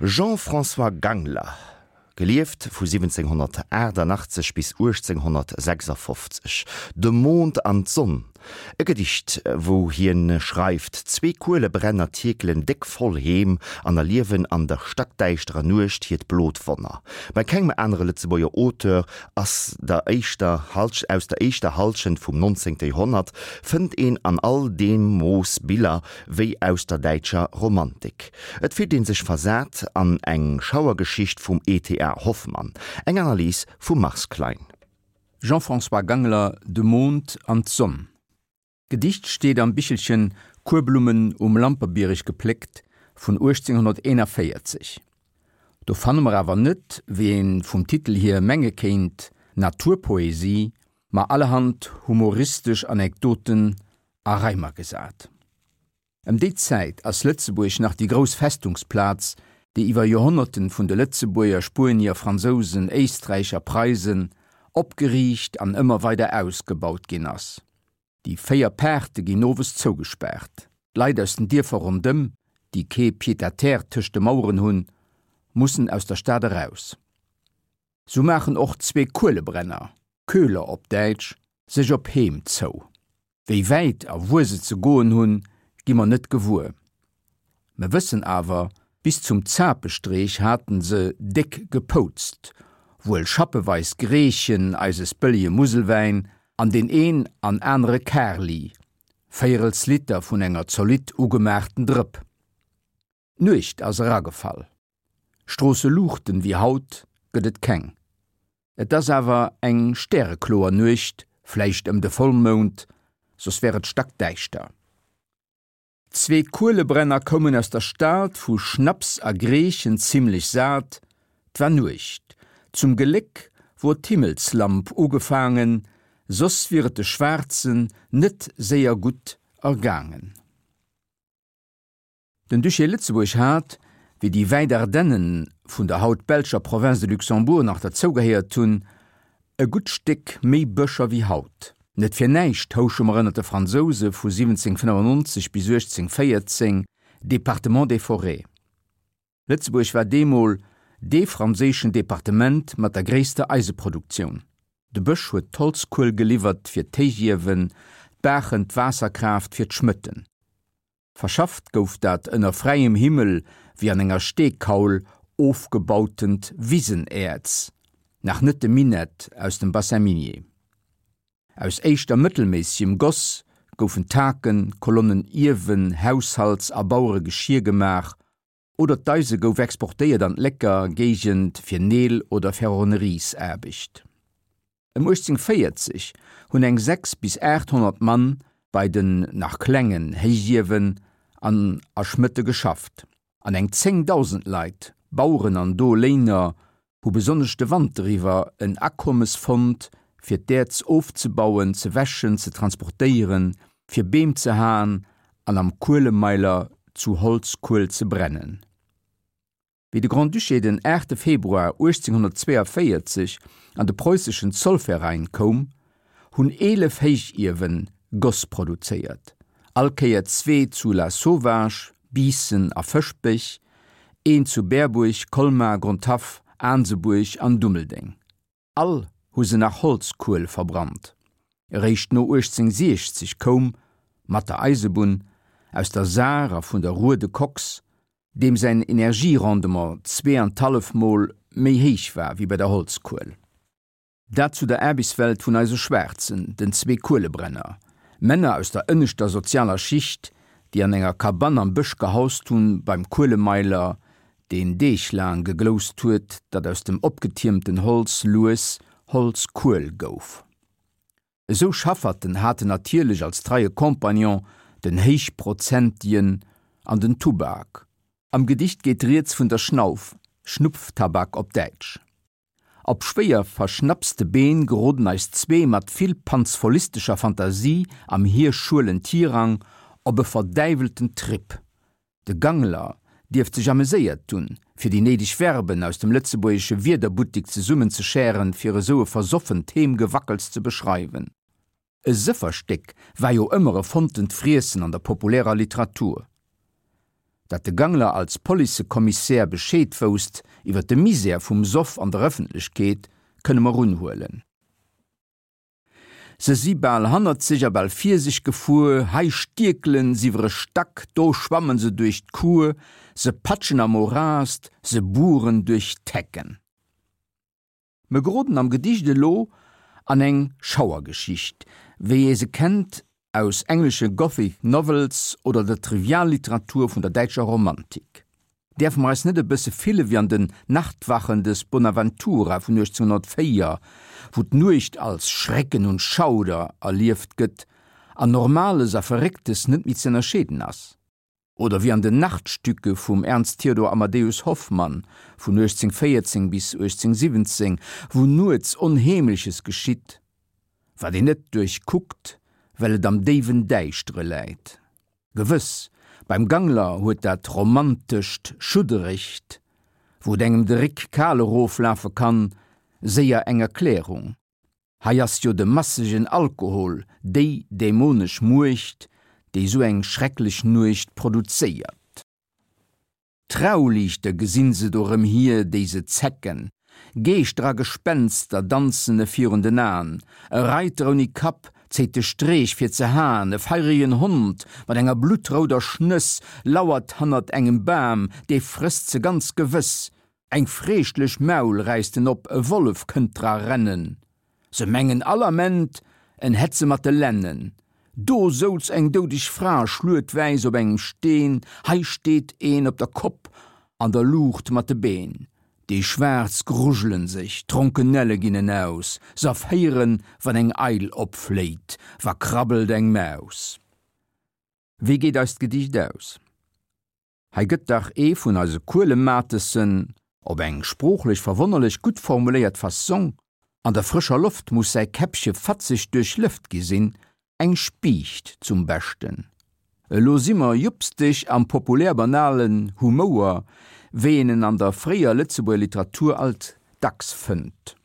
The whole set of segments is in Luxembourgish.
Jean-François Gangler, gelieft vu 1788 bis 1856, De Mond an d'Sonn, e Gedicht, wou hien schreift, Zwee Kuelebrenner tierkelen déck voll heem an erliewen an der stackdäischterer Nuecht hiert blot Wonner. Bei kengem anere Lëtzebuerger Auteur ass der éischter aus der éischter Hallschent vum 19. Joerhonnert fënnt een an all deem Mooss Biller wéi aus der däitscher Romantik. Et fillt een sech versat an eng Schauergeschicht vum E.T.A. Hoffmann. Eng Analys vum Mars Klein. Jean-François Gangler, De Mond an d'Sonn. D'Gedicht steet am Bichelchen Kuerblummen um Lamperbiereg gepléckt vun 1841. Do fanne mer awer net, wéi een vum Titel hier menge kéint, Naturpoesie, ma allerhand humoristesch Anekdoten a Reimer gesat. Ëm déi Zäit ass Lëtzebuerg nach déi grouss Festungsplaz, déi iwwer Joerhonnerten vun de Lëtzebuerger, Spuenier, Fransousen, Éisträicher, Preisen opgeriicht an ëmmer weider ausgebaut ginn ass. Déi 4 Paarte ginn owes zougespaart. D'Leit aus den Dierfer rondëm, déi kee Pied-à-terre tëscht de Maueren hunn, mussen aus der Stad eraus. Sou maachen och zwee Kuelebrenner, Köhler op Däitsch, sech op Heem zou. Wéi wäit a wuer se ze goen hunn, gi mer net gewuer. Mer wëssen awer, bis zum Zapestreech haten se déck gepoutzt, wuel schappeweis Greechen, eises bëllege Muselwäin an deen een an anere Karli, véierels Liter vun enger zolidd ugemaachten Drëpp. D'Nuecht ass eragefall. Stroosseluuchten wéi haut gëtt et keng. Et ass awer eng stärekloer Nuecht, vläicht ëm de Vollmound, soss wär et stackdäischter. Zwee Kuelebrenner koumen aus der Stad, vu Schnaps a Greechen zimlech sat. 't war Nuecht, zum Geléck wor d'Himmelslamp ugefaangen, soss wier et de Schwaarzen net séier gutt ergaangen. Den Duché Lëtzebuerg hat, wéi déi wäit Ardennen vun der haut belscher Province de Luxembourg nach derzougehéiert hunn, e gutt Stéck méi Bëscher wéi haut. Net fir näischt houche mer ënner de Fransouse vu 1795 bis 1814 Département des Forêts. Lëtzebuerg war deemol dee franséischen Departement mat der gréisster Eiseproduktioun. De Bësch huet d'Holzkuel geliwwert fir d'Héichiewen, d'Baachen d'Waasserkraaft fir d'Schmëtten. Verschafft gouf dat ënner fräiem Himmel wéi an enger Steekaul ofgebautent Wisenäerz, nach net de Minett aus dem Bassin minier. Aus éischter mëttelméissegem Goss goufen Taken, Kolonnen, Iewen, Haushalts a Baueregeschier gemaach oder d'Eise gouf exportéiert an d'Lécker Géigend fir Neel oder Ferronneriesaarbecht. Ëm 1840 hunn eng 6 bis 800 Mann bei den nach klengen Héichiewen an a Schmëtte geschafft, an eng 10.000 Leit, Baueren an Doléiner, hu besonnesch de Wanter iwwer en Akommes fonnt, fir d'Äerz ofzebauen, ze wäschen, ze transportéieren, fir Beem ze haen an am Kuelemeiler zu Holzkuel ze brennen. Wéi de Grand-Duché den 8 Februar 1842 an de preußeschen Zollverein koum, hunn 11 Héichiewen Goss produzéiert, all Kéier zwee zu Lasauvage, Biissen a Fëschbech, een zu Berbuerg, Colmar, Grondhaff, Aansebuerg an Dummeldeng. All hu se nach Holzkuel verbrannt. Eréischt no 1860 koum, mat der Eisebunn, aus der Saar a vun der Ruhr de Koks, deem säin Energierendement zweeanthallef Mol méi héich war wéi bei der Holzkuel. Dat zu der Aarbechtswelt vun eise Schwaarzen, den zwee Kuelebrenner, Männer aus der ënneschter sozialer Schicht, déi an enger Kabann am Bësch gehaust hunn, beim Kuelemeiler, deen Deeg laang gegloust huet, datt aus dem opgetiermten Holz lues Holzkuel gouf. Esou Schafferten haten natierlech als treie Compagnon den Héichprozentien an den Tubak. Am Gedicht geet rieds vun der Schnauf, Schnupftabak op Däitsch. Op schwéier verschnappste Been geroden eis zwee mat vill panzfollistescher Fantasie am hir schuelen Tirang op e verdäiwelten Trip. De Gangler dierft sech ameséiert hunn, fir déi néideg Verben aus dem lëtzebuergesche Wierderbuttik zesummenzeschären, fir esou e versoffent Heemgewackels ze beschreiwen. E Sëfferstéck war jo ëmmer e fonntent Friessen an der populärer Literatur. Datt de Gangler als Policekommissär Bescheed wousst iwwer de Misär vum Soff an der Ëffentlechkeet, kënne mer unhuelen. Se si bal hannert sech a bal vir sech gefuer, hei stierkelen s'iwwer e Stack, do schwammen se duerch d'Kuer, se patschen am Morast, se bueren duerch d'Hecken. Mer geroden am Gedicht elo an eng Schauergeschicht, wéi ee se kennt aus englesche Gothic Novels oder der Trivialliteratur vun der däitscher Romantik. Däerfe mer eis net e bësse fille wéi an den Nachtwachen des Bonaventura vun 1804, wou d'Nuecht als Schrecken und Schauder erlieft gëtt an Normales a Verrécktes net méi ze ënnerscheeden ass? Oder wéi an den Nachtstücke vum Ernst Theodor Amadeus Hoffmann vun 1814 bis 1817, wou nuets Onheemleches geschitt, wat een net duerchkuckt, well et am déiwen Däischtere läit. Gewëss, beim Gangler huet dat romantescht Schudderegt, wou et engem de Réck kal eroflafe kann, séier eng Erklärung. Hei ass jo de massegen Alkohol déi dämonesch Muecht, déi sou eng schrecklech Nuecht produzéiert. Trauliichter gesinn se do rëm hier, déi se zecken. Geeschter a Gespenster danzen e virun den Aen. E Reiter ouni Kapp zéit de Streech fir ze haen. E feiregen Hond mat enger bluttrouder Schnëss lauert hannert engem Bam, dee frësst se ganz gewëss. Eng freeschtlech Maul räisst en op, e Wollef kënnt dra rennen. Se mengen all Ament, en hätt se mat de Lennen. Do souz eng doudeg Fra schluetwäiss op engem Steen, hei steet een op der Kopp an der Luucht mat de Been. Déi Schwaarz grujelen sech, d'Ronkenelle ginn en aus, s'erféieren, wann eng Eil opfléit, wa krabbelt eng Maus. Wéi geet eist Gedicht aus? Hei gëtt dach ee vun eise Kuelematessen, op eng sproochlech verwonnerlech gutt formuléiert Fassong, an der frëscher Loft muss säi Käppche fatzeg duerchlëft gi sinn, eng Spiicht zum Beschten. Elo si mer jupsteg am populär-banalen Humouer, wéi een en an der fréier Lëtzebuerger Literatur alt dacks fënnt.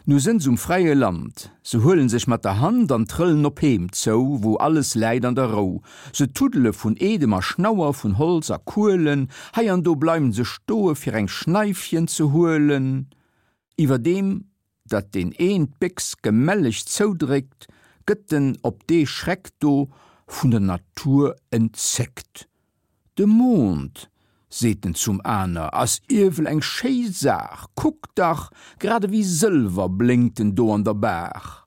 Nu sënn s'um fräie Land, se huelen sech mat der Hand an trëllen op Heem zou, wou alles läit an der Rou. Se tuddele vun Edem a Schnauer, vun Holz a Kuelen, hei an do bleiwen se stoe fir eng Schneifchen ze huelen. Iwwerdeem datt deen een d'Béchs gemelleg zoudréckt, gëtt en op dee Schreck do vun der Natur entzéckt. De Mond, seet en zum aner, ass iewel eng schéi Saach, kuck dach, grad ewéi Sëlwer blénkt en do an der Baach.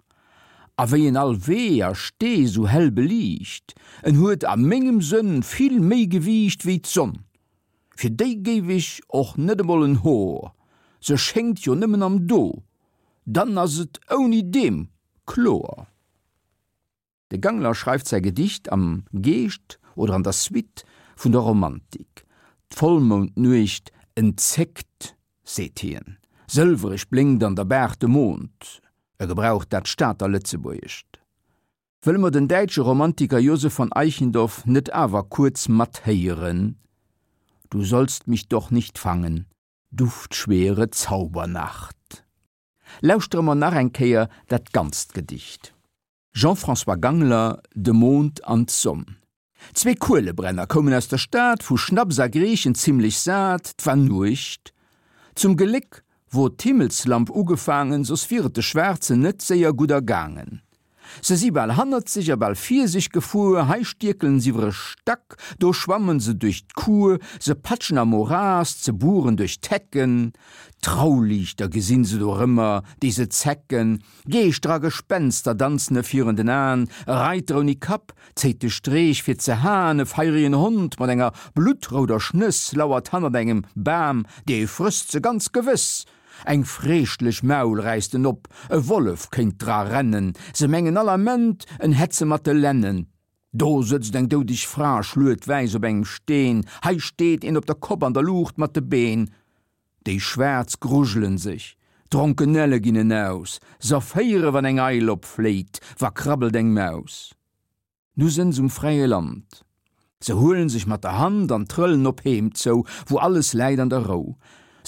A wéi en all Wee a Stee sou hell beliicht, en huet a mengem Sënn vill méi Gewiicht wéi d'Sonn. Fir déi géif ech och net emol en Hor, se schéngt jo nëmmen am Do, dann ass et ouni deem kloer. De Gangler schreift säi Gedicht am Geescht oder an der Suite vun der Romantik. D'Vollmoundnuecht entzéckt, seet hien. Sëlwereg blénkt an der Baach de Mond. E gebraucht dat Stater Lëtzebuergescht. Wëlle mer den däitsche Romantiker Joseph von Eichendorff net awer kuerz mathéieren, Du sollst mich doch nicht fangen, duftschwere Zaubernacht. Lauschtere mer nach eng Kéier dat ganzt Gedicht. Jean-François Gangler, De Mond an d'Sonn. Zwee Kuelebrenner koumen aus der Stad, vu Schnaps a Greechen zimlech sat, 't war Nuecht. Zum Geléck wor d'Himmelslamp ugefaangen, soss wier et de Schwaarzen net séier gutt ergaangen. Se si bal hannert sech a bal vir sech gefuer, hei stierkelen s'iwwer e Stack, do schwammen se duerch d'Kuer, se patschen am Morast, se bueren duerch d'Hecken. Trauliichter gesinn se dorëmmer, déi se zecken, Geeschter a Gespenster danzen e virun den Aen, e Reiter ouni Kapp zéit de Streech fir ze haen, e feiregen Hond mat enger bluttrouder Schnëss lauert hannert engem Bam, dee frësst se ganz gewëss. Eng freeschtlech Maul räisst en op, e Wollef kéint dra rennen, se mengen all Ament, en hätt se mat de Lennen. Do sëtzt eng doudeg Fra schluetwäiss op engem Steen, hei steet een op der Kopp an der Luucht mat de Been. Déi Schwaarz grujelen sech, d'Ronkenelle ginn en aus, s'erféiere wann eng Eil opfléit, wa krabbelt eng Maus. Nu sënn s'um fräie Land, se huelen sech mat der Hand an trëllen op Heem zou, wou alles läit an der Rou.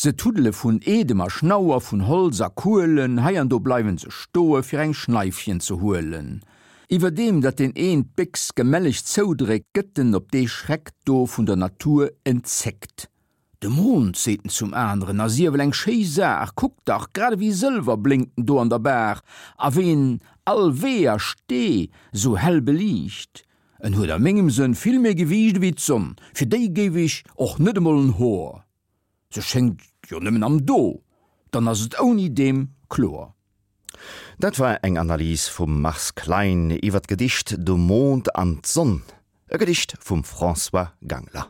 Se tuddele vun Edem a Schnauer, vun Holz a Kuelen, hei an do bleiwen se stoe fir eng Schneifchen ze huelen. Iwwerdeem datt deen een d'Béchs gemelleg zoudréckt, gëtt en op dee Schreck do vun der Natur entzéckt. De Mond, seet en zum aneren, ass iewel eng schéi Saach, kuck dach, grad ewéi Sëlwer blénkt en do an der Baach, a wéi en all Wee a Stee sou hell beliicht. En huet a mengem Sënn vill méi Gewiicht ewéi d'Sonn, fir déi géif ech och net emol en Hoer. Se schéngt jo nëmmen am Do, dann ass et ouni deem kloer. Dat war eng Analys vum Mars Klein iwwer d'Gedicht De Mond an d'Sonn, e Gedicht vum François Gangler.